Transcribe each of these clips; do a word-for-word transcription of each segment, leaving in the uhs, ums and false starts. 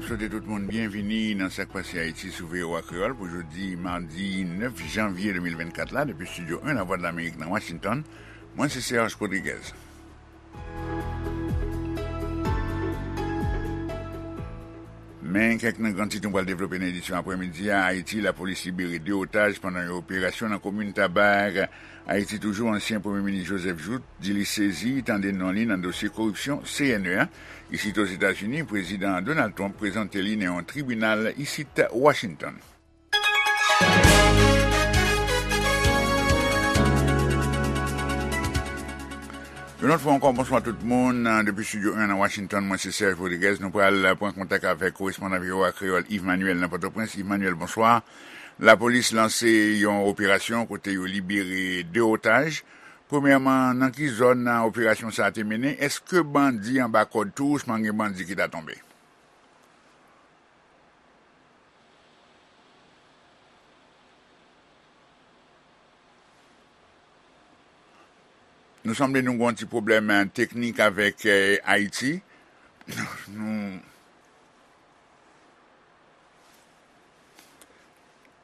Swete tout moun byenvini nan Sa k Pase Ayiti sou V O A Kreyòl pou jodi madi nèf janvye de mil vennkat la, depi Estidyo en Lavwadlamerik nan Washington. Mwen se Serge Rodriguez. Men kèk nan gran tit nou pral devlope nan edisyon aprèmidi a. Ayiti, lapolis libere de otaj pandan yon operasyon nan komin Tabag. Ayiti toujou, ansyen Premye Minis Joseph Jouthe di li sezi tande non li nan dosye koripsyon C N E a. Isit Ozetazini, Prezidan Donald Trump prezante li nan yon tribinal isit Washington. Yon lòt fwa ankò, bonswa tout moun. Depi Estidyo en nan Washington, mwen se Serge Rodriguez. Nou pral pran kontak avèk korespondan V O A Kreyòl Yves Manuel nan Pòtoprens. Yves Manuel, bonswa. Lapolis lanse yon operasyon kote yo libere de otaj. Premyèman, nan ki zòn operasyon sa a te mennen? Èske bandi anba kòd tou, ousman gen bandi ki ta tonbe? Nou sanble nou gen yon ti pwoblèm, eh, teknik avèk, eh, Ayiti. Nou,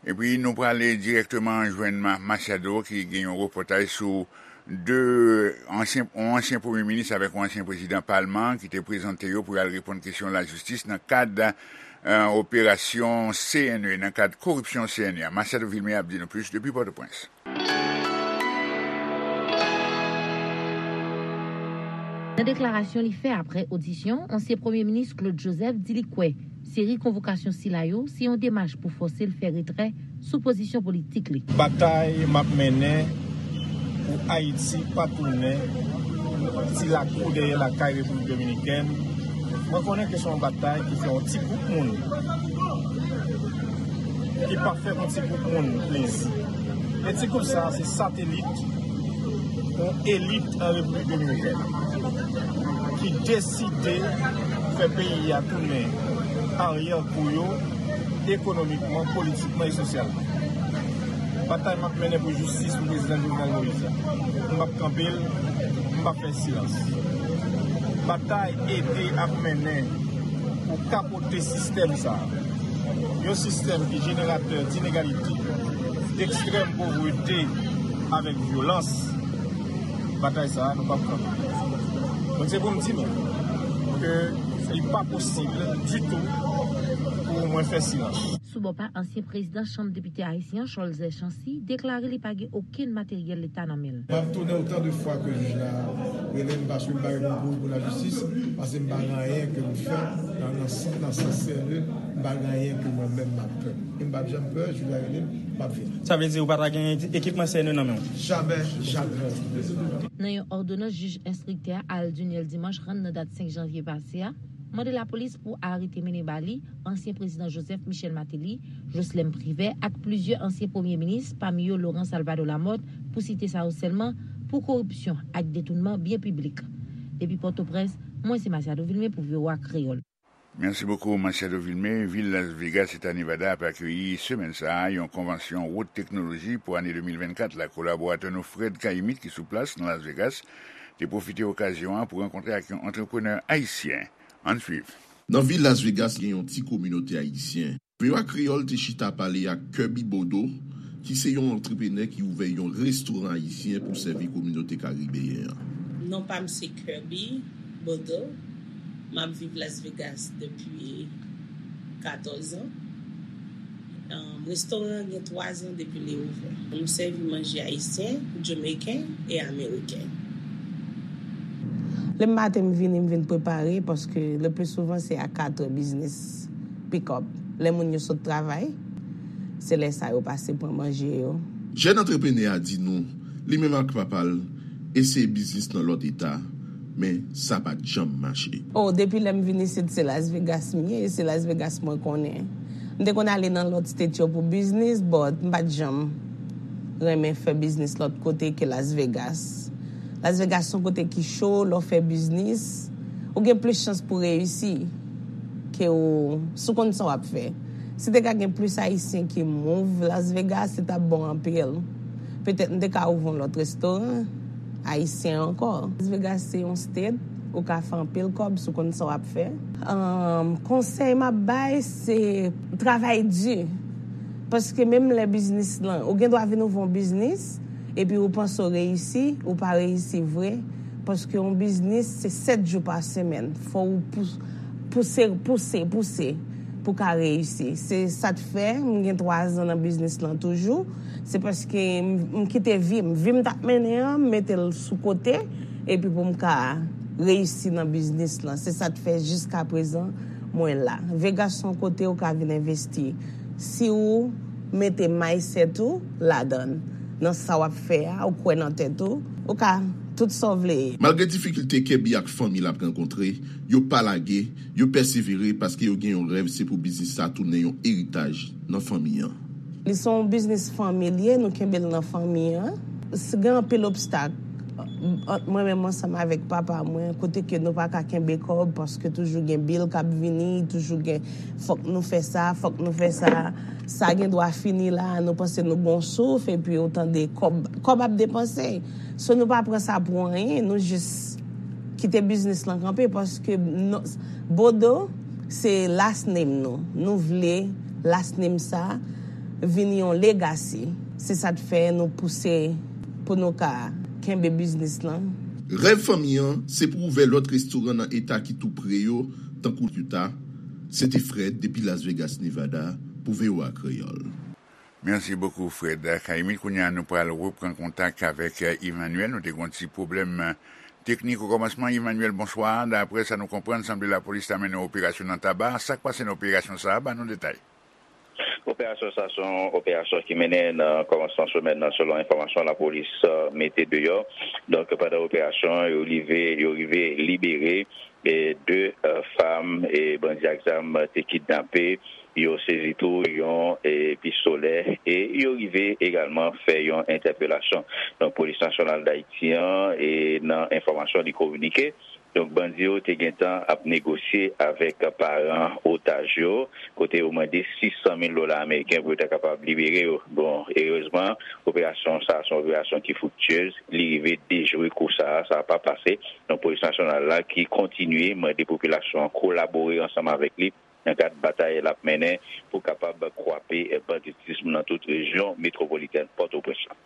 epi nou prale dirèkteman jwenn Ma-, Machado ki gen yon repòtaj sou de ansyen, yon ansyen premye minis avèk yon ansyen prezidan palman ki te prezante yo pou y al reponn kesyon lajistis nan kad, eh, operasyon C N E, nan kad koripsyon C N E a. Machado Vilmé ap di nou plis depi Pòtoprens. Nan deklarasyon li fè apre odisyon, ansyen Premye Minis Claude Joseph di li kwè seri konvokasyon sila yo se yon demach pou fòse l fè retrè sou pozisyon politik li. Batay m ap mennen pou Ayiti pa tounen ti lakou dèyè lakay Repiblik Dominikèn. Mwen konnen ke se yon batay ki fè yon ti gwoup moun ki pa fè yon ti gwoup moun plezi. E ti gwoup sa a se satelit yon elit an Repiblik Dominikèn ki deside fè peyi a tounen aryè kou yo ekonomikman, politikman e sosyalman. Batay m ap mennen pou jistis pou prezidan Jovenel Moïse la. M p ap kanpe l, m p ap fè silans. Batay ede ap mennen pou kapote sistèm sa a. Yon sistèm ki jeneratè d'inégalité, d'extrême pauvreté avèk vyolans. Batay sa a, nou p ap kanpe. Donk, se pou m di nou ke li pa posib ditou pou mwen fè silans. Sou bò pa ansyen prezidan Chanm Depite ayisyen an, Cholzer Chancy, deklare li pa gen okenn materyèl leta nan men l. M ap tounen otan de fwa ke jij la rele m, paske m pa gen pou kouri pou lajistis, paske m pa gen anyen ke m fè nan, nan, nan sans serye, m pa gen anyen ke mwen menm m ap pè. E m p ap janm pè, jij la rele m, m ap vini. Sa vle di ou pa ta gen ekipman C N E nan men w? Jamè, jamè. Nan yon òdonans jij enstriktè a Al Duniel Dimanche rann nan dat senk janvye pase a, mande lapolis pou arete mennen ba li ansyen prezidan Joseph Michel Martelly, Jocelerme Privert ak plizyè ansyen premye minis, pami yo Laurent Salvador Lamothe, pou site sa yo sèlman, pou koripsyon ak detounman byen piblik. Depi Pòtoprens, mwen se Masiado Vilmé pou V O A Kreyòl. Merci beaucoup, Masiado Vilmé. Vil Las Vegas, Eta Nevada, ap akeyi semèn sa a yon konvansyon wot teknoloji pou ane de mil vennkat la. Kolaboratè nou Fred Caillemette, ki sou plas nan Las Vegas, te pwofite okazyon an pou rankontre ak yon antreprenè ayisyen. Ann swiv. Nan vil Las Vegas, gen yon ti kominote ayisyen. V O A Kreyòl te chita pale ak Kirby Bodo, ki se yon antreprenè ki ouvè yon restoran ayisyen pou sèvi kominote karibeyen an. Non pa m se Kirby Bodo. M ap viv Las Vegas depi katòz an. Em, restoran an gen twa zan depi li ouvè. Nou sèvi manje ayisyen, jamaican e ameriken. Lè maten m vini, m vin prepare, paske le pli souvan se a katrè biznis pick up. Lè moun yo sot travay, se lè sa yo pase pran manje yo. Jèn antreprenè a di nou, li menm ak papa l eseye biznis nan lòt eta, men sa pa t janm mache. Oh, depi lè m vin isit, se Las Vegas m ye, e se Las Vegas mwen konnen. M te konn ale nan lòt state yo pou biznis, but m pa t janm renmen fè biznis lòt kote ke Las Vegas. Las Vegas se yon kote ki cho, lè w fè biznis, ou gen plis chans pou reyisi ke w, si w konn sa w ap fè. Si te ka gen plis Ayisyen ki move Las Vegas, li t ap bon anpil. Petèt m te ka ouvri yon lòt restoran ayisyen ankò. Las Vegas se yon state Ou ka fè anpil kòb si w konn sa w ap fè. Ahn, konsèy m ap bay, se travay di. Paske menm lè biznis lan, ou gen dwa vin ouvri yon biznis, epi ou panse w reyisi, ou pa reyisi vre. Paske yon biznis, se sèt jou pa semèn. Fò w pous-, pouse, pouse, pouse pou ka reyisi. Se sa k fè m gen twa zan nan biznis lan toujou. Se paske m, m kite vi m. Vi m t ap mennen an, m mete l sou kote, epi pou m ka reyisi nan biznis lan. Se sa k fè jiskaprezan mwen la. Vegas se yon kote ou ka vin envesti. Si ou mete mindset ou ladan, nan sa w ap fè a, ou kwè nan tèt ou, ou ka tout sa w vle ye. Malgre difikilte Kirby ak fanmi l ap rankontre, yo pa lage, yo pèsevere paske yo gen yon rèv, se pou biznis sa tounen yon eritaj nan fanmi an. Li se yon biznis fanmilye, nou kenbe l nan fanmi an. S-, gen anpil obstak ant mwen menm ansanm avèk papa mwen, kote ke nou pa ka kenbe kòb paske toujou gen bil k ap vini, toujou gen fòk nou fè sa, fòk nou fè sa. Sa gen dwa fini la, nou panse nou gon souf, epi ou tande kòb, kòb ap depanse. So nou pa pran sa pou anyen, nou jis kite biznis lan kanpe paske non, Bodo se last name nou. Nou vle last name sa vin yon legacy. Se sa k fè nou pouse pou nou ka kenbe biznis lan. Rèv fanmi an, se pou ouvè lòt restoran nan eta ki tou pre yo, tankou Utah. Se te Fred depi Las Vegas, Nevada, pou V O A Kreyòl. Merci beaucoup, Fred Caïmite. Kounye a, nou pral reprann kontak avèk, eh, Emmanuel. Nou te gen yon ti pwoblèm, eh, teknik o kòmansman. Emmanuel, bonswa. Daprè sa nou konprann, sanble lapolis ta mennen operasyon nan Taba. Sa k pase nan operasyon sa a? Ban nou detay. Operasyon sa a se yon operasyon ki mennen nan kòmansman semèn nan, selon enfòmasyon lapolis, eh, mete deyò. Donk, pandan operasyon, yo rive, yo rive libere e de, eh, fanm e bandi ak zam te kidnape. Yo sezi tou yon, e, pistolè e yo rive egalman fè yon entèpelasyon. Donk, Polis Nasyonal Dayiti an, e, nan enfòmasyon li kominike, donk, bandi yo te gentan ap negosye avèk paran otaj yo, kote yo mande sis san mil dola ameriken pou yo ta kapab libere yo. Bon, erezman, operasyon sa a se yon operasyon ki friktyez, li rive dejwe kou sa a, sa a pa pase. Donk, Polis Nasyonal la ki kontinye mande popilasyon an kolabore ansanm avèk li nan kad batay l ap mennen pou kapab kwape banditism nan tout rejyon metwopolitèn Pòtoprens lan.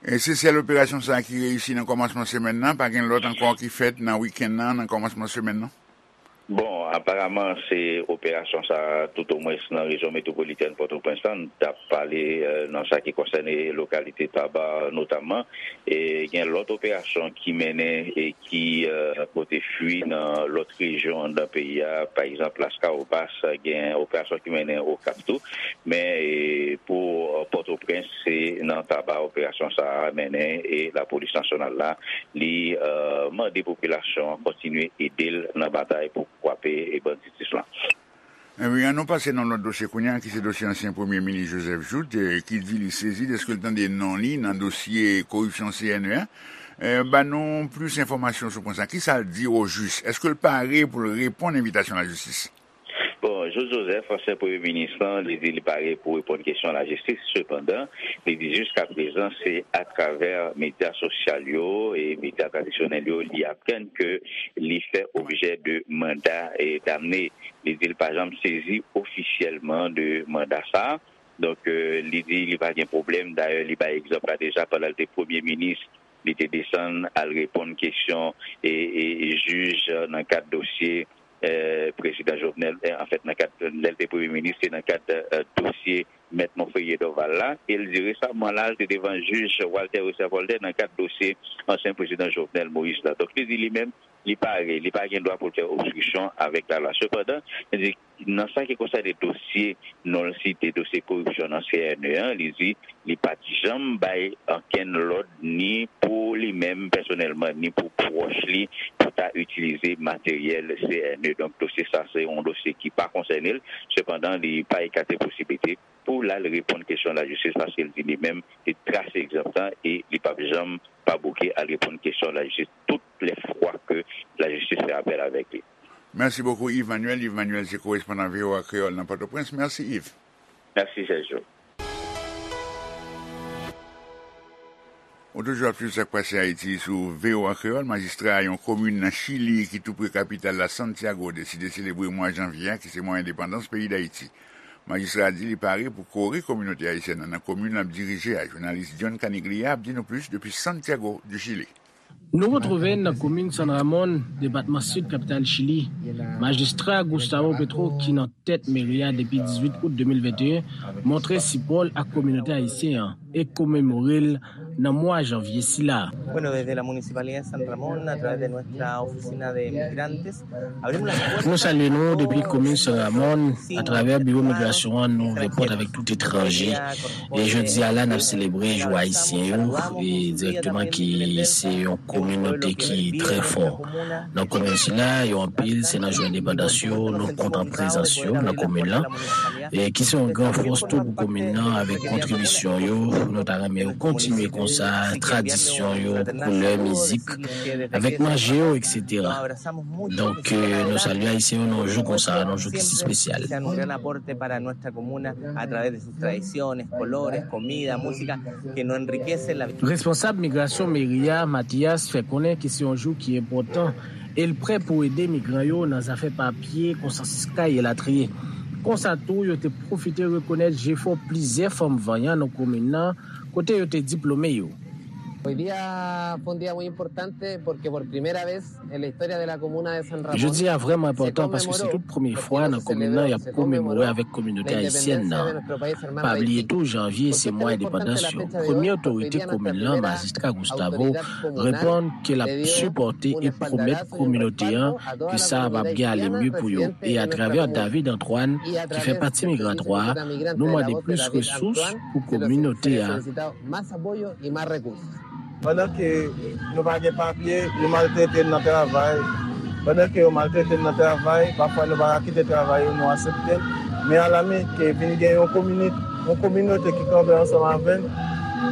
E se sèl operasyon sa a ki reyisi nan kòmansman semèn nan? Pa gen lòt ankò ki fèt nan wikenn nan, nan kòmansman semèn nan? Bon, aparaman, se operasyon sa a, toutomwens nan rejyon metwopolitèn Pòtoprens lan, n t ap pale, eh, nan sa ki konsène lokalite Taba, notamman. E gen lòt operasyon ki mennen e ki, eh, pote fwi nan lòt rejyon anndan peyi a. Pa egzanp, Laskawobas, gen operasyon ki mennen Okap tou. Men, e, pou, eh, Pòtoprens, se nan Taba operasyon sa a mennen e Lapolis Nasyonal la, li, eh, mande popilasyon an kontinye ede l nan batay pou kwape e banditis lan. Ebyen, ann nou pase nan lòt dosye kounye a, ki se dosye ansyen Premye Minis Joseph Jouthe, eh, ki di li sezi dèske l tande non li nan dosye koripsyon C N E a. Eh, ban nou plis enfòmasyon sou pwen sa. Kisa l di o jis? Èske l pare pou l reponn envitasyon lajistis? Bon, Jouthe Joseph, ansyen Premye Minis lan, li di li pare pou reponn kesyon lajistis. Sepandan, li di jiskaprezan, se atravè medya sosyal yo e medya tradisyonèl yo li aprann ke li fè objè de manda, e, damne. Li di l pa janm sezi ofisyèlman de manda sa a. Donk, eh, li di li pa gen pwoblèm. Dayè, li bay egzanp la deja, pandan l te Premye Minis, li te desann al reponn kesyon e, e, jij nan kad dosye, eh, prezidan Jovenel, eh, anfèt, nan kad, lè l te Premye Minis, se nan kad, eh, dosye Mèt Monferrier Dorval la. E l di resaman la, l te devan jij Walter Wesser Voltaire nan kad dosye ansyen prezidan Jovenel Moïse la. Donk, li di li menm, li pare, li pa gen dwa pou l fè obstriksyon avèk lalwa. Sepandan, li di, nan sa ki konsène dosye non l site, dosye koripsyon nan C N E an, li di li pa t janm bay okenn lòd ni pou li menm pèsonèlman, ni pou pwòch li, pou ta itilize materyèl C N E. Donk, dosye sa, se yon dosye ki pa konsène l. Sepandan, li pa ekate posiblite pou l al reponn kesyon lajistis, paske l di li menm, li trase egzanp lan e li p ap janm pa bouke al reponn kesyon lajistis tout lè fwa ke lajistis fè apèl avèk li. Mèsi bokou, Yves Manuel. Yves Manuel se korespondan V O A Kreyòl nan Pòtoprens. Mèsi, Yves. Mèsi, Sergio. Ou toujou ap swiv sa k pase Ayiti sou V O A Kreyòl. Majistra yon komin nan Chili ki tou pre kapital la, Santiago, deside selebre mwa janvye a, ki se mwa endepandans peyi Dayiti. Majistra a di li pare pou kore kominote ayisyèn nan, nan komin l ap dirije a. Jounalis John Caniglia ap di nou plis depi Santiago du Chili. Nou retwouve n nan komin San Ramon, depatman Sid, kapital Chili. Majistra Gustavo Petro, ki nan tèt meri a depi dizuit out de mil venteyen, montre sipò l ak kominote ayisyen an e komemore l nan mwa janvye sila. Bueno, desde la Municipalidad de San Ramón, a través de nuestra oficina de migrantes, abrimos las puertas. Nou salye nou depi komin San Ramon, atravè biwo migrasyon an, nou ouvè pòt avèk tout etranje. E jodi a la, n ap selebre jou ayisyen yo, e dirèkteman ki se yon kominote ki trè fò. Nan komin sila, yo anpil, se nan jou endepandans yo, nou kontan prezans yo nan komin lan, e ki se yon gran fòs tou pou komin nan, avèk kontribisyon yo, nou ta renmen yo kontinye konsa, tradisyon yo, koulè, mizik, avèk manje yo, et cetera. Donk, eh, nou salye Ayisyen yo nan yon jou konsa, nan yon jou ki si espesyal. Sea un gran aporte para nuestra comuna a través de sus tradiciones, colores, comida, música, que nos enriquece la vida. Responsab migrasyon meri a, Mathias, fè konnen ke se yon jou ki enpòtan e l prè pou ede migran yo nan zafè papye, konsansye kay elatriye. Konsa tou, yo te pwofite rekonèt jefò plizyè fanm vanyan nan komin nan, kote yo te diplome yo. Hoy día fue un día muy importante porque por primera vez en la historia de la comuna de San Ramón. Jodi a vrèman enpòtan paske se tout premye fwa nan komin nan y ap komemore avèk kominote ayisyèn nan. Pa bliye tou, janvye se mwa endepandans yo. Premye otorite komin lan, Majistra Gustavo, reponn ke l ap sipòte e pwomèt kominote an ke sa ap ap gen ale mye pou yo. E atravè David Antoine, ki fè pati migratwa a, nou mande plis resous pou kominote a. Más apoyo y más recursos. Pandan ke nou pa gen papye, yo maltrete n nan travay. Pandan ke yo maltrete n nan travay, pafwa nou pa ka kite travay yo, nou aksepte l. Men alami ke vin gen yon komini-, yon kominote ki kanpe ansanm avè n,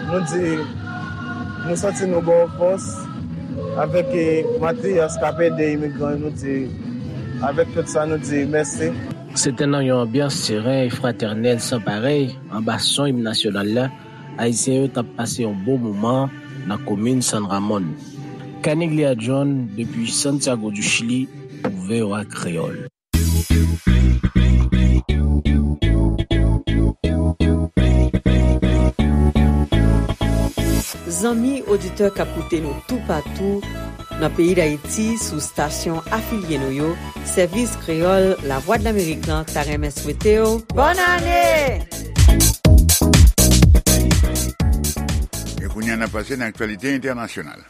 nou di, nou santi nou ba w fòs. Avèk, eh, Mathias k ap ede imigran yo, nou di, avèk tout sa, nou di mèsi. Se te nan yon anbyans seren e fratènèl san parèy, anba son im nasyonal la, Ayisyen yo t ap pase yon bon moman nan komin San Ramon. Caniglia John, depi Santiago du Chili, pou V O A Kreyòl. Zanmi oditè k ap koute nou toupatou nan peyi Dayiti sou stasyon afilye nou yo, Sèvis Kreyòl Lavwadlamerik lan ta renmen swete w bòn ane! E kounye a, n ap pase nan aktyalite entènasyonal.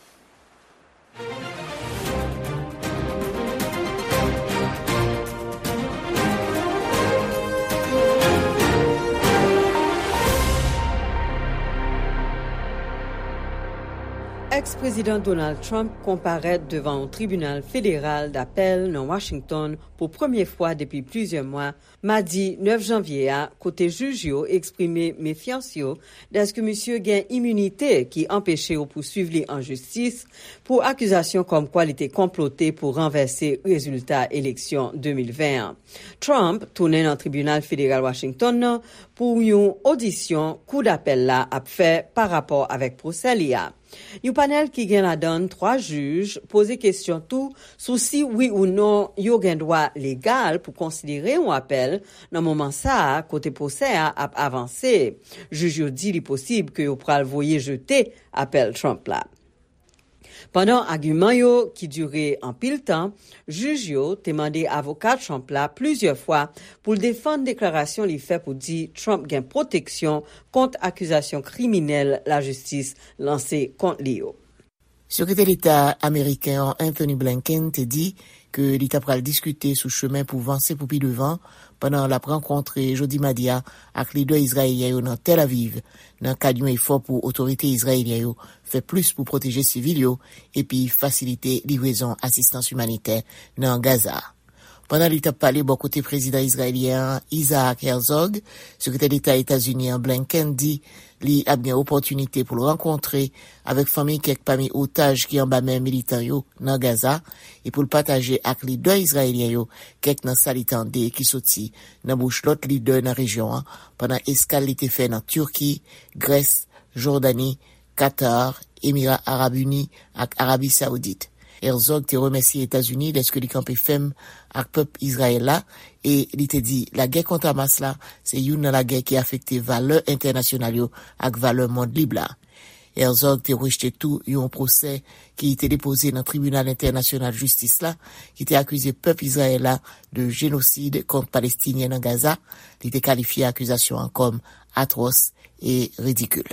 Èks-prezidan Donald Trump konparèt devan yon tribinal federal dapèl nan Washington pou premye fwa depi plizyè mwa, madi nèf janvye a, kote jij yo eksprime mefyans yo dèske misye gen iminite ki anpeche yo pouswiv li an jistis pou akizasyon kòmkwa li te konplote pou ranvèse rezilta eleksyon de mil ven an. Trump tounen nan tribinal federal Washington nan pou yon odisyon kou dapèl la ap fè pa rapò avèk pwosè li a. Yon panèl ki gen ladan l twa jij poze kesyon tou sou si wi ou non yo gen dwa legal pou konsidere yon apèl nan moman sa a kote pwosè a ap avanse. Jij yo di li posib ke yo pral voye jete apèl Trump la. Pandan agiman yo ki dire anpil tan, jij yo te mande avoka Trump la plizyè fwa pou l defann deklarasyon li fè pou di Trump gen pwoteksyon kont akizasyon kriminèl lajistis lanse kont li yo. Sekretè Deta ameriken an, Anthony Blinken, te di ke li ta pral diskite sou chemen pou vanse pou pi devan pandan l ap rankontre jodi madi a ak lidè izrayelyen yo nan Tel Aviv, nan kad yon efò pou otorite izrayelyen yo fè plis pou pwoteje sivil yo epi fasilite livrezon asistans imanitè nan Gaza. Pandan li t ap pale bò kote prezidan izrayelyen an, Isaac Herzog, sekretè deta Etazini an, Blinken, di li ap gen opòtinite pou l rankontre avèk fanmi kèk pami otaj ki anba men militan yo nan Gaza e pou l pataje ak lidè izrayelyen yo kèk nan sa li tande ki soti nan bouch lòt lidè nan rejyon an pandan eskal li te fè nan Tiki, Grès, Jòdani, Katar Emira Arab Ini ak Arabi Sawoudit. Herzog te remèsye Etazini dèske li kanpe fèm ak pèp Izrayèl la, e li te di lagè kont Hamas la se youn nan lagè ki afekte valè entènasyonal yo ak valè mond lib la. Herzog te rejte tou yon pwosè ki te depoze nan Tribinal Entènasyonal Jistis la, ki te akize pèp Izrayèl la de jenosid kont Palestinyen nan Gaza. Li te kalifye akizasyon an kòm atwòs e ridikil.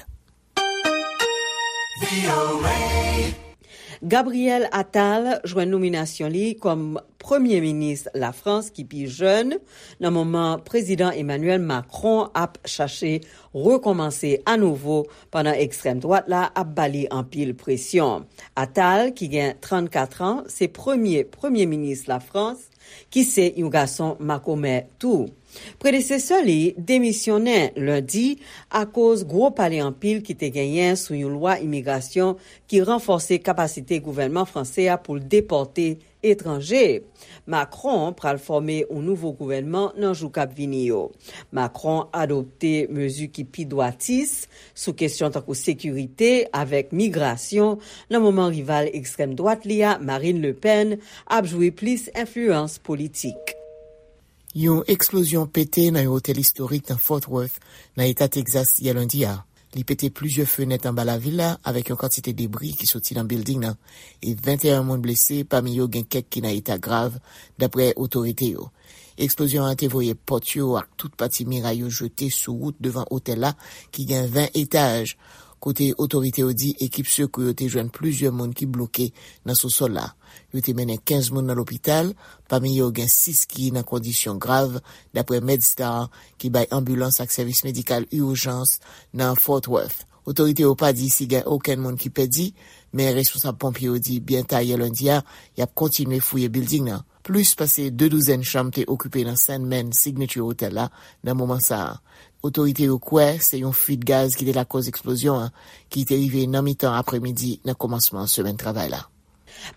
Gabriel Attal jwenn nominasyon li kòm premye minis Lafrans ki pi jèn, nan moman Prezidan Emmanuel Macron ap chache rekòmanse anouvo pandan ekstrèm dwat la ap ba li anpil presyon. Attal, ki gen trannkat an, se premye premye minis Lafrans, ki se yon gason makomè tou. Predesesè li demisyonnen lendi akoz gwo pale anpil ki te genyen sou yon lwa imigrasyon ki ranfòse kapasite gouvènman franse a pou l depòte etranje. Macron pral fòme yon nouvo gouvènman nan jou k ap vini yo. Macron adopte mezi ki pi dwatis sou kesyon tankou sekirite avèk migrasyon nan moman rival ekstrèm dwat li a, Marine Le Pen, ap jwi plis enfliyans politik. Yon eksplozyon pete nan yon otèl istorik nan Fort Worth, nan eta Texas, yè lendi a. Li pete plizyè fenèt anba lavil la, avèk yon kantite debri ki soti nan bilding nan, e venteyen moun blese, pami yo gen kèk ki nan eta grav, dapre otorite yo. Eksplozyon an te voye pòt yo ak tout pati miray yo jete sou wout devan otèl la, ki gen ven etaj, kote otorite yo di ekip sekou yo te jwenn plizyè moun ki bloke nan sousòl la. Yo te mennen kenz moun nan lopital, pami yo gen sis ki nan kondisyon grav, dapre MedStar, ki bay anbilans ak sèvis medikal ijans nan Fort Worth. Otorite yo pa di si gen okenn moun ki pèdi, men responsab ponpye yo di byen ta yè lendi a, y ap kontinye fouye bilding nan. Plis pase de douzèn chanm te okipe nan Sandman Signature Hotel la nan moman sa a. Otorite yo kwè se yon fuit gaz ki te lakòz eksplozyon an, ki te rive nan mitan apremidi nan kòmansman semèn travay la.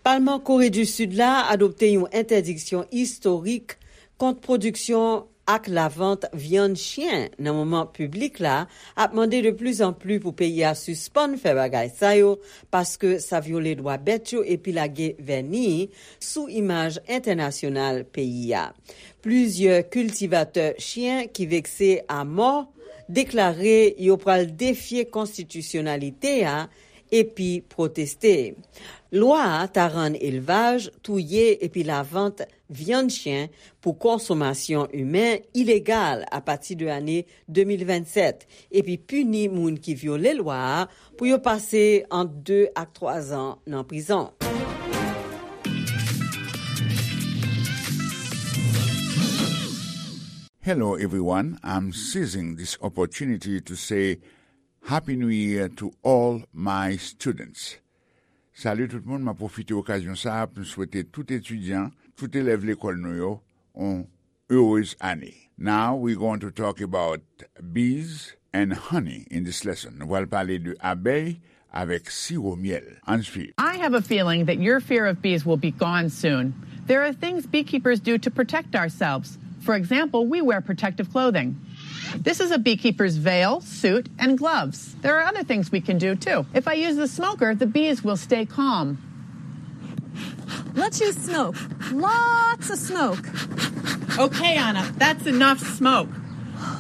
Palman Kore di Sid la adopte yon entèdiksyon istorik kont pwodiksyon ak lavant vyann chyen nan moman piblik la ap mande de pli an pli pou peyi a sispann fè bagay sa yo, paske sa vyole dwa bèt yo epi lage vèni sou imaj entènasyonal peyi a. Plizyè kiltivatè chyen ki vekse a mò deklare yo pral defye konstitisyonalite a epi pwoteste. Lwa a ta rann elvaj, touye epi lavant vyann chyen pou konsomasyon imen ilegal apati de ane de mil vennsèt, epi pini moun ki vyole lwa a pou yo pase ant de ak twa zan nan prizon. Hello, everyone. I'm seizing this opportunity to say Happy New Year to all my students. Salut tout le monde, mwen pwofite okazyon sa a pou m swete tout etidyan, tout elèv lekòl nou yo, yon heureuse année. Now we're going to talk about bees and honey in this lesson. Nou pral pale de abèy avèk siwo myèl. Ann swiv. I have a feeling that your fear of bees will be gone soon. There are things beekeepers do to protect ourselves. For example, we wear protective clothing. This is a beekeeper's veil, suit, and gloves. There are other things we can do too. If I use the smoker, the bees will stay calm. Let's use smoke. Lots of smoke. Okay, Anna, that's enough smoke.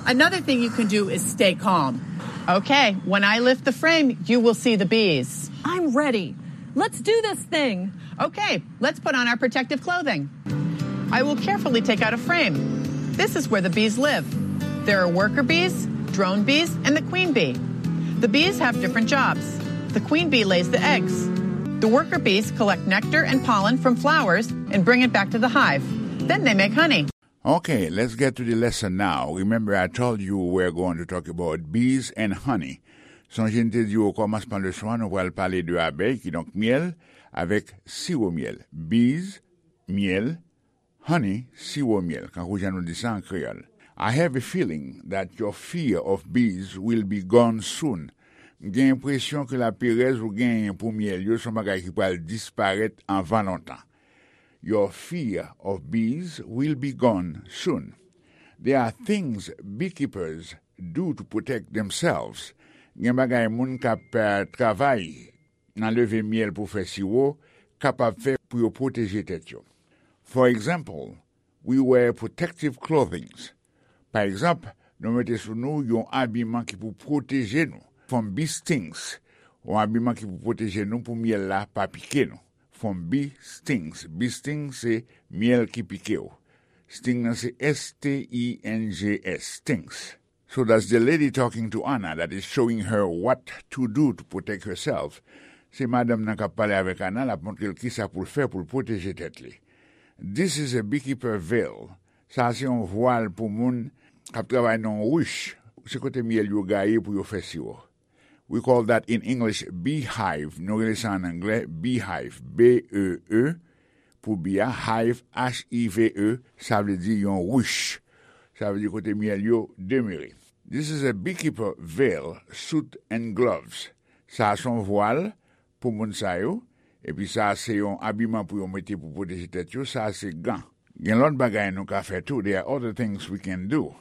Another thing you can do is stay calm. Okay, when I lift the frame, you will see the bees. I'm ready. Let's do this thing. Okay, let's put on our protective clothing. I will carefully take out a frame. This is where the bees live. There are worker bees, drone bees, and the queen bee. The bees have different jobs. The queen bee lays the eggs. The worker bees collect nectar and pollen from flowers and bring it back to the hive. Then they make honey. Okay, let's get to the lesson now. Remember, I told you we're going to talk about bees and honey. Sonje m te di w okòmansman leson an, nou pral pale de abèy, kidonk myèl, avèk siwo myèl. Bees, myèl, honey, siwo myèl, kankou jan nou di sa an kreyòl. I have a feeling that your fear of bees will be gone soon. M gen enpresyon ke laperèz ou genyen pou myèl yo se yon bagay ki pral disparèt anvan lontan. Your fear of bees will be gone soon. There are things beekeepers do to protect themselves. Gen bagay moun k ap travay nan leve myèl pou fè siwo kapab fè pou yo pwoteje tèt yo. For example, we wear protective clothings. Pa egzanp, nou mete sou nou yon abiman ki pou pwoteje nou from bee stings, yon abiman ki pou pwoteje nou pou myèl la pa pike nou. From bee stings. Bee sting se myèl ki pike w. Sting nan se S T I N G S, stings. So that's the lady talking to Anna that is showing her what to do to protect herself. Se madanm nan k ap pale avèk Ana, l ap montre l kisa pou l fè pou l pwoteje tèt li. This is a beekeeper veil. Sa a se yon vwal pou moun k ap travay nan yon rich. Se kote myèl yo gaye pou yo fè siwo. We call that in English beehive. Nou rele sa an anglè beehive. B E E pou bee a, hive, H I V E, sa vle di yon rich. Sa vle di kote myèl yo demere. This is a beekeeper veil, suit and gloves. Sa a se yon vwal pou moun sa yo. Epi sa a se yon abiman pou yo mete pou pwoteje tèt yo. Sa a se gan. Gen lòt bagay nou ka fè tou. There are other things we can do.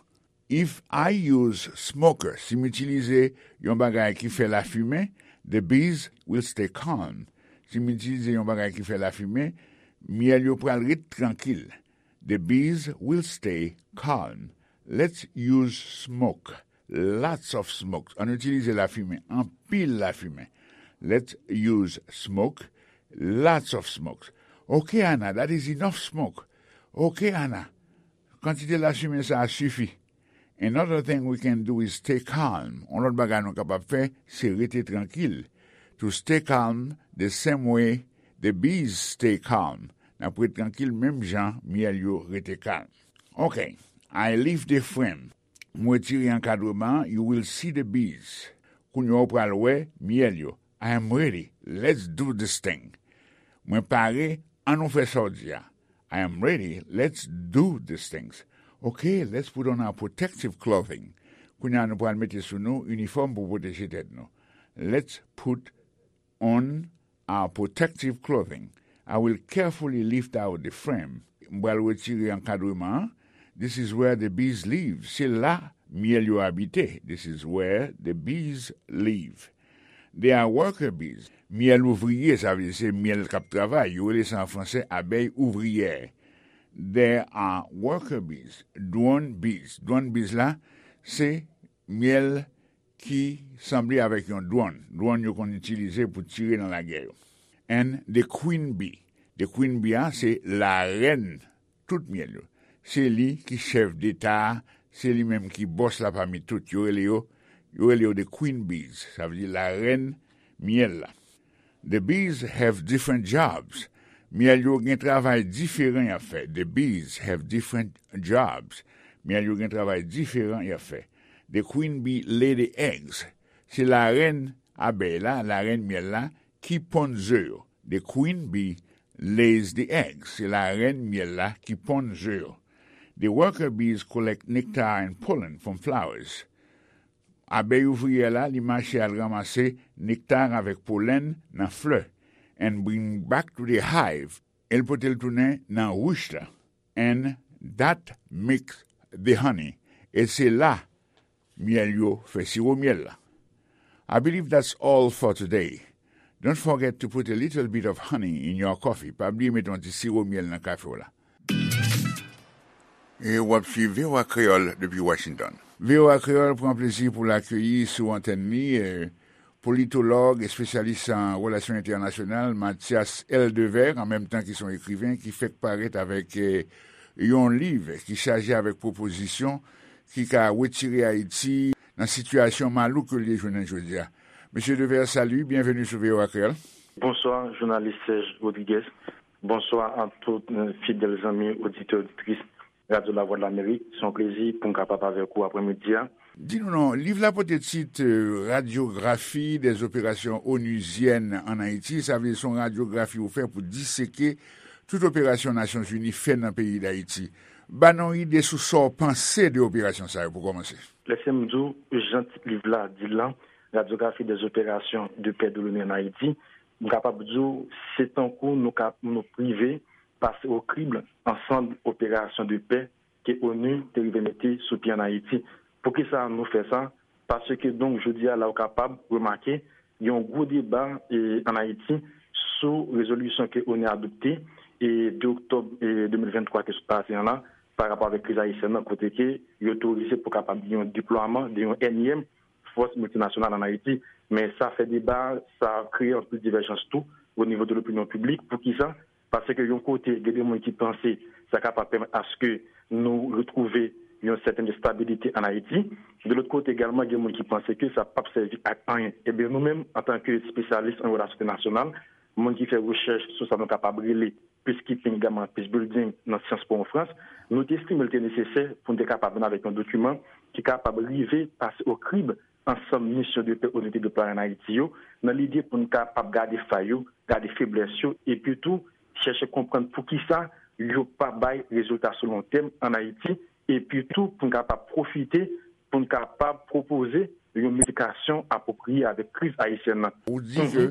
If I use smoker, si m itilize yon bagay ki fè lafimen, the bees will stay calm. Si m itilize yon bagay ki fè lafimen, myèl yo pral ret trankil. The bees will stay calm. Let's use smoke. Lots of smoke. Ann itilize lafimen. Anpil lafimen. Let's use smoke. Lots of smoke. Ok, Ana, that is enough smoke. Ok, Ana. Kantite lafimen sa a sifi. Another thing we can do is stay calm. Yon lòt bagay nou kapab fè, se rete trankil. To stay calm the same way the bees stay calm. N ap ret trankil menm jan myèl yo rete kalm. Ok, I lift the frame. Mwen retire ankadreman an, you will see the bees. Kounye a w pral wè myèl yo. I am ready. Let's do this thing. Mwen pare, ann nou fè sa w di a. I am ready. Let's do these things. Ok, let's put on our protective clothing. Kounye a nou pral mete sou nou inifòm pou pwoteje tèt nou. Let's put on our protective clothing. I will carefully lift out the frame. M pral retire ankadreman an. This is where the bees live. Se la myèl yo abite. This is where the bees live. They are worker bees. Myèl ouvriye, sa vle di se myèl k ap travay. Yo rele sa an fransè abeilles ouvrières. They are worker bees. Drone bees. Drone bees la, se myèl ki sanble avèk yon drone. Drone yo konn itilize pou tire nan lagè yo. And the queen bee. The queen bee a, se larèn tout myèl yo. Se li ki chèf deta a, se li menm ki bòs la pami tout. Yo rele yo, yo rele yo the queen bees. Sa vle di larèn myèl la. The bees have different jobs. Myèl yo gen travay diferan y ap fè. The bees have different jobs. Myèl yo gen travay diferan y ap fè. The queen bee lay the eggs. Se larèn abèy la, larèn myèl la, ki ponn ze yo. The queen bee lays the eggs. Se larèn myèl la ki ponn ze yo. The worker bees collect nectar and pollen from flowers. Abèy ouvriyè la, li mache al ranmase nekta avèk polèn nan flè, and bring back to the hive, e l pote l tounen nan rich la. And that makes the honey. E se la myèl yo fè siwo myèl la. I believe that's all for today. Don't forget to put a little bit of honey in your coffee. Pa bliye mete yon ti siwo myèl nan kafe w la. E w ap swiv V O A Kreyòl depi Washington. V O A Kreyòl pran plezi pou l akeyi sou antèn li, eh, politològ, espesyalis an relasyon entènasyonal, Mathias Eldevert, an menm tan ki se yon ekriven ki fèk parèt avèk, eh, yon liv ki chaje avèk pwopozisyon ki ka retire Ayiti nan sitiyasyon malouk ke l ye jounen jodi a. Mesye Devert, salut, bienvenue sou V O A Kreyòl. Bonswa, jounalis Serge Rodriguez. Bonswa a tout, eh, fidèl zanmi, oditè, oditris Radyo Lavwadlamerik. Se yon plezi pou m kapab avèk ou aprèmidi a. Di nou non, liv la pote tit, eh, Radyografi dè zoperasyons onuzyèn ann Ayiti. Sa vle di se yon radyografi ou fè pou diseke tout operasyon Nasyonzini fè nan peyi Dayiti. Ba nou yon ide sou sa w panse de operasyon sa yo pou kòmanse. Lèse m di w, jan tit liv la di l lan, Radyografi dè zoperasyons de pè de l'ONU ann Ayiti, m kapab di w, se tankou nou ka, nou prive pase o krible ansanm operasyon de pè ke onu te rive mete sou pye ann Ayiti. Poukisa nou fè sa? Paske, donk, jodi a la, ou kapab remake, Gen yon gwo deba e, ann Ayiti sou rezolisyon ke onu adopte e, de oktòb e, de mil venntwa ke sot pase an la, pa rapò avèk kriz ayisyèn nan, kote ke yo otorize pou kapab gen yon deplwaman de yon ènyèm fòs miltinasyonal ann Ayiti. Men sa fè deba, sa kreye anpil divèjans tou o nivo de lopinyon piblik. Poukisa? Paske yon kote, gen de moun ki panse sa kapab pèmèt aske nou retwouve yon sètèn estabilite ann Ayiti. De lòt kote egalman, gen moun ki panse ke sa p ap sèvi ak anyen. Ebyen, nou menm, antanke espesyalis an relasyon entènasyonal, moun ki fè rechèch sou sa nou kapab rele peacekeeping, egalman peace building nan syans Pòtoprens, nou te estime l te nesesè pou n te kapab vin avèk yon dokiman ki kapab rive pase o krib ansanm misyon de pè onu te deplwaye ann Ayiti yo, nan lide pou n kapab gade fay yo, gade feblès yo, epi tou chèche konprann poukisa yo pa bay rezilta sou lon tèm ann Ayiti, epi tou pou n kapab pwofite, pou n kapab pwopoze yon medikasyon apwopriye avèk kriz ayisyèn nan. Ou di ke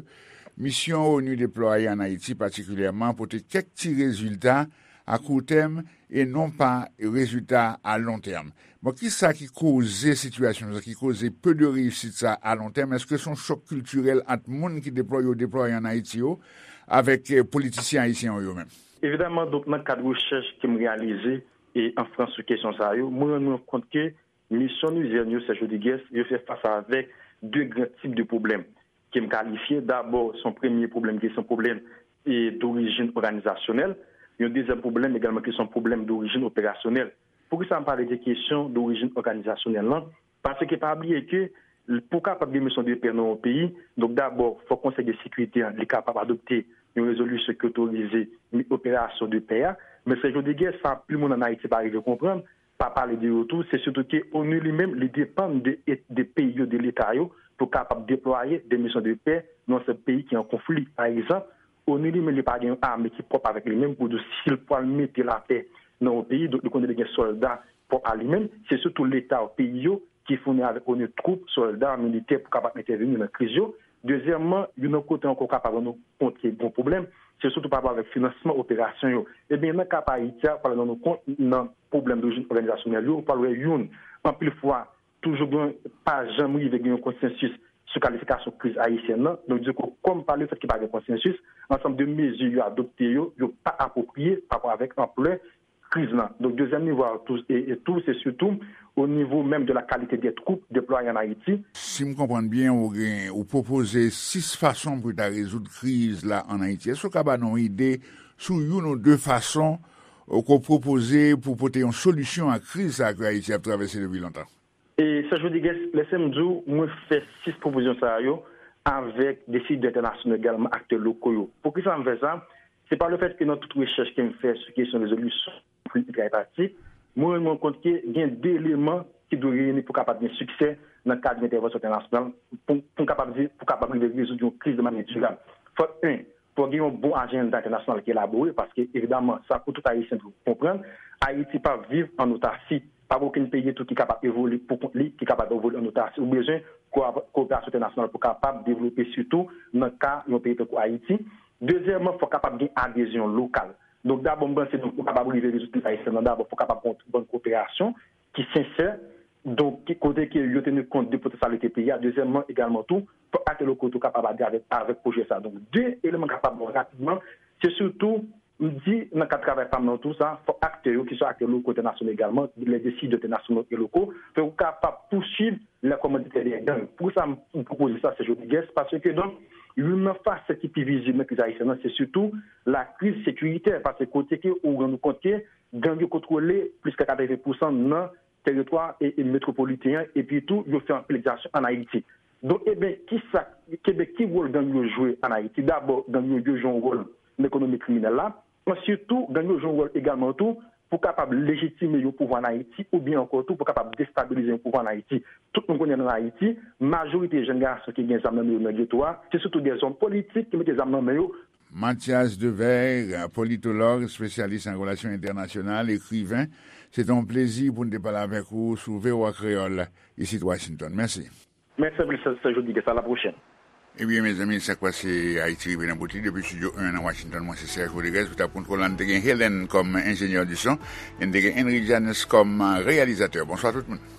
misyon onu deplwaye ann Ayiti patikilyèman pote kèk ti rezilta a kou tèm e non pa rezilta a lon tèm. Bon, kisa ki koze sitiyasyon sa, ki koze peu de réussite sa a lon tèm? Èske se yon chòk kiltirèl ant moun ki deplwaye, yo deplwaye ann Ayiti yo, avèk eh, politisyen ayisyen yo, yo menm? Evidaman, donk, nan kad rechèch ke m reyalize e an Frans sou kesyon sa yo, mwen rann mwen kont ke misyon onuzyèn yo, Serge Rodrigues, yo fè fas avèk de gran tip de pwoblèm ke m kalifye. Dabò, se yon premye pwoblèm ki se yon pwoblèm e, dorijin òganizasyonèl, yon dezyèm pwoblèm egalman ki se yon pwoblèm dorijin operasyonèl. Poukisa m pale de kesyon dorijin òganizasyonèl lan? Paske pa bliye ke pou kapab gen misyon de pè nan yon peyi, donk dabò, fòk Konsèy de Sekirite an, li kapab adopte yon rezolisyon ki otorize operasyon de pè a. Men Serge Rodrigues, sa anpil moun ann Ayiti pa rive konprann, pa pale de yo tou, se sitou ke onu li menm, li depann de, de peyi yo, de leta yo, pou kapab deplwaye de misyon de pè nan sèt peyi ki an konfli. Pa egzanp, onu li menm, li pa gen yon ame ki pwòp avèk li menm pou di si l pral mete lapè nan yon peyi, donk li konnen li gen sòlda pwòp a li menm. Se sitou leta yo, peyi yo, ki founi avèk onu twoup, sòlda, militè pou kapab entèveni nan kriz yo. Dezyèmman, youn nan kote ankò w kapab rann ou kont ke gen yon pwoblèm, se sitou pa rapò avèk finansman operasyon yo. Ebyen, nan ka pa Ayiti a, w pral rann ou kont nan pwoblèm dorijin òganizasyonèl yo, ou pral wè youn, anpil fwa, toujou gen, pa janm rive gen yon konsansis sou kalifikasyon kriz ayisyèn nan. Donk, di kou, kòm pa lefèt ke pa gen konsansis, ansanm de mezi yo adopte yo, yo pa apwopriye pa rapò avèk anplè kriz lan. Donk, dezyèm nivo a tou, e, e tou, se sitou o nivo menm de la qualité des troupes déployées en Haïti. Si m konprann byen, ou gen, ou pwopoze sis fason pou ta rezoud kriz la ann Ayiti. Èske w ka ba nou yon ide sou youn ou de fason, ou, ke w pwopoze pou pote yon solisyon a kriz sa a ke Ayiti ap travèse depi lontan? E Serge Rodrigues, lèse m di w, mwen fè sis pwopozisyon sa yo avèk desidè entènasyonal, egalman aktè loko yo. Poukisa m fè sa? Se pa lefèt ke nan tout rechèch ke m fè sou kesyon rezolisyon konfli entra-etatik, mwen rann mwen kont ke gen de eleman ki dwe reyini pou kapab gen siksè nan kad yon entèvansyon entènasyonal, pou, pou n kapab di, pou kapab rive rezoud yon kriz de manyè dirab. Fòk, en, fòk gen yon bon ajanda entènasyonal ki elabore, paske, evidaman, sa pou tout Ayisyen dwe konprann, Ayiti p ap viv ann otasi. Pa gen okenn peyi tou ki kapab evolye pou kont li, ki kapab evolye ann otasi. Ou bezwen ko-, kowoperasyon entènasyonal pou kapab devlope, sitou nan ka yon peyi tankou Ayiti. Dezyèmman, fòk kapab gen adezyon lokal. Donk, dabò, m panse, donk, pou kapab rive rezoud kriz ayisyèn nan, dabò, fòk kapab gen yon bann kowoperasyon ki sensè, donk, ki, kote ke yo teni kont de potansyalite peyi a. Dezyèmman, egalman tou, fòk aktè loko tou kapab adere avèk, avèk pwojè sa. Donk, de eleman kapab bon rapidman, se sitou, m di, nan kad travay pa m nan tou sa, fòk aktè yo, ki swa aktè loko, entènasyonal egalman, les décideurs internationaux et locaux, fòk yo kapab pouswiv les commanditaires des gangs. Poukisa m, m pwopoze sa, Serge Rodrigues? Paske, donk, youn nan fasèt ki pi vizib nan kriz ayisyèn nan, se sitou la kriz sekiritè, paske kote ke ou rann ou kont ke gang yo kontwole plis ke katreven pousan nan teritwa e, e metwopoliten an, epi tou, yo fè anpil egzakasyon ann Ayiti. Donk, eben, kisa, eben, ki wòl gang yo jwe ann Ayiti? Dabò, gang yo, yo jwe yon wòl nan ekonomi kriminèl la. Answit tou, gang yo jwe yon wòl egalman tou pou kapab lejitime yon pouvwa ann Ayiti, oubyen ankò tou pou kapab destabilize yon pouvwa ann Ayiti. Tout moun konnen ann Ayiti, majorite jèn gason ki gen zam nan men yo nan geto a, se sitou de zòm politik ki mete zam nan men yo. Mathias Devers, politològ, espesyalis an relasyon entènasyonal, ekriven, se te yon plezi pou n te pale avèk ou sou V O A Kreyòl, isit Washington. Mèsi. Mèsi anpil, Serge Rodrigues. À la prochaine. Ebyen, mezanmi, sa k pase Ayiti rive nan bout li. Depi estidyo en nan Washington, mwen se Serge Rodrigues, pou ta kontwole la, n te gen Helen kòm enjenyè di son, e n te gen Henry Janus kòm reyalizatè. Bonswa tout moun.